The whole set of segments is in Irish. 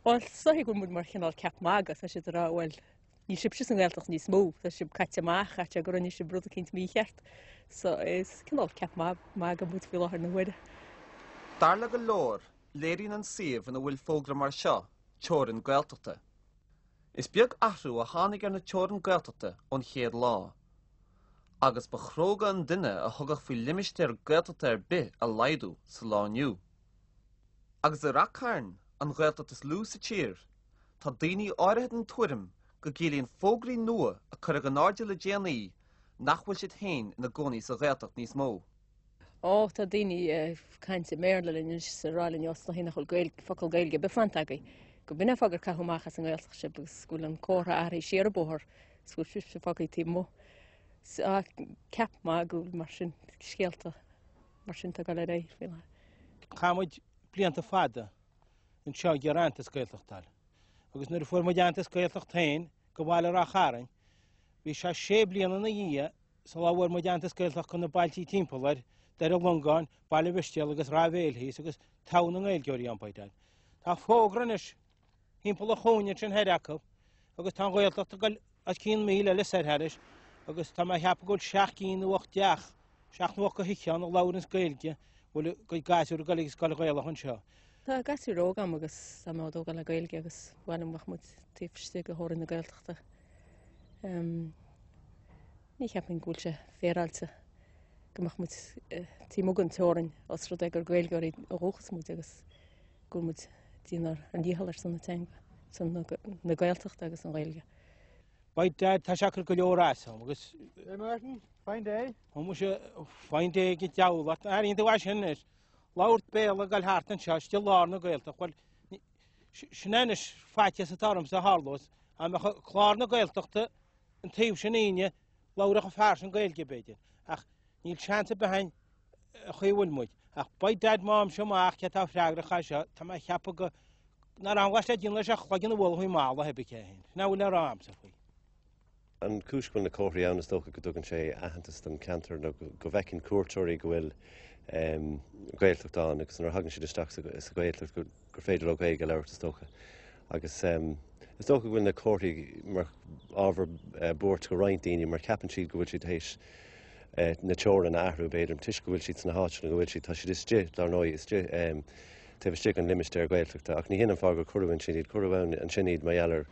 Bhuel, is dóiche go bhfuil muid mar chineál ceap magaidh, tá siad ag rá, bhuel, níl sibhse sa nGaeltacht níos mó, tá sibh caite amach, caithfidh sé go rinne sibh rud eicínt mícheart. So is cineál ceap magaidh muid faoi láthair na huaire. Dar le go leor, léiríonn an suíomh ina bhfuil fógra mar seo teorainn Gaeltachta. Is beag athrú a tháinig ar na teorainn Gaeltachta ón chéad lá. Agus ba chróga an duine a thugadh faoi limistéar Gaeltachta ar bith a laghdú sa lá inniu. Agus i Rath Cairn, an Ghaeltacht is lú sa tír, tá daoine áirithe den tuairim go gciallaíonn fógraí nua a cuireadh in airde le déanaí nach bhfuil siad féin ina gcónaí sa Ghaeltacht níos mó. Ó, tá daoine ag caint i mBéarla linn anois is ag rá linn os nach bhfuil Gaeilge, focal Gaeilge ar bith fanta agaibh, go b'in é an fáth gur caitheadh amach as an nGaeltacht sibh agus go bhfuil an comhartha athraithe siar an bóthar is go bhfuil sibhse fágtha taobh amuigh. Ceap magaidh mar sin, scéalta mar sin atá ag dul ar aghaidh faoi láthair. Chaith muid blianta fada anseo ag iarraidh aitheantas Gaeltachta a fháil. Agus nuair a fuair muid aitheantas Gaeltacht féin go bhaile Ráth Chairn, bhí sé sé bliana ina dhiaidh Sula bhfuair muid aitheantas Gaeltacht go na bailtí timpeall air, Doire Longáin, Baile Mhistéal agus Ráth Bhéil thíos agus togha na nGaeilgeoirí ann by dad. Tá fógra anois thimpeall an chúinne ansin thoir acu agus tá an Ghaeltacht ag goil os cionn míle eile soir thairis agus tá mé a cheapadh go bhfuil seacht gcinn nó ocht dteach, seacht nó ocht go thithe ann a labhranns Gaeilge, bhfuil a gcuid gasúr ag goil ag scoil Ghaelach anseo. Tá gasúir óga agam agus tá mé á dtógáil le Gaeilge agus ba mhaith liom go mbeadh muid taobh istigh de theorainn na Gaeltachta. Ní cheapaim go bhfuil sé féaráilte go mbeadh muid taobh amuigh den teorainn os rud é gur Gaeilgeoirí ó dhúchas muid agus go bhfuil muid ag déanamh ár ndícheall ar son na teanga, son na Gaeltachta agus an Ghaeilge. By dad, tá sé ag cur go leor as dom agus... Hey Martin, fine day. Tá muise, fine day ag an diabhal ort, airíonn tú é sin anois. Labhairt Béarla ag dul thart anseo, istigh i lár na Gaeltachta, bhuel, sin é anois faitíos atá ormsa a tharlós, dá mbeadh clár na Gaeltachta an taobh sin againne, labhródh an fear sin Gaeilge b'fhéidir, ach níl seans ar bith againn an chaoi a bhfuil muid. Ach by dad má fhaighimse amach cé atá freagrach as seo, tá mé ag ceapadh go nach raibh an le déanamh leis ach cloigeann a bhualadh faoin mballa, pé bith cé é. Sin é a bhfuil le rá agamsa faoi. An chúis go bhfuil na comharthaí ann, is dócha go dtugann sé aitheantas don cheantar nó go bhfeiceann cuairteoirí go bhfuil Gaeltacht ann agus nuair a thagann siad isteach sa Ghaeltacht gur féidir leo Gaeilge a labhairt is dócha. Agus is dócha go bhfuil na comharthaí mar ábhar buairt go roinnt daoine mar ceapann siad go bhfuil siad théis na teorann a athrú b'fhéidir toisc go bhfuil siad sna háiteanna go bhfuil siad, tá siad istigh dar ndóigh istigh taobh istigh den limistéar Gaeltachta ach ní hin an fáth gur cuireadh ansin iad, cuireadh ansin iad mar gheall ar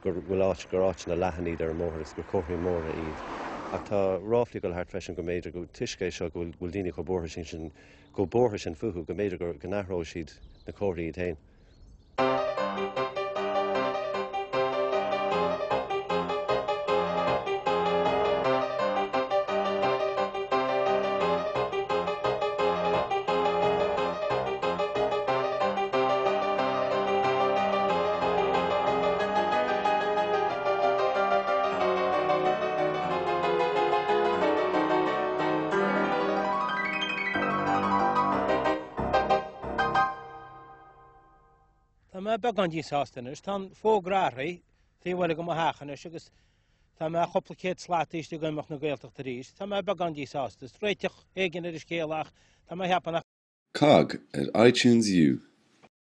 go bhfuil áit, gur áiteanna leathan iad ar an mbóthar agus gur comharthaí móra iad. Ach tá ráflaí ag dul thart freisin go mb'fhéidir go, toisc é seo go bhfuil daoine chomh buartha sin sin, chomh buartha sin fúthu, go mb'fhéidir go, go n-athróidh siad na comharthaí iad féin. Tá mé beagán díshásta anois. Tá an fógra athraithe taobh eile de mo theach anois agus tá mé cúpla céad slat istigh in imeacht na Gaeltachta arís. Tá mé beagán díshásta. Is réiteach éigin ar an scéal ach tá mé ag ceapadh nach COGG ar iTunes U.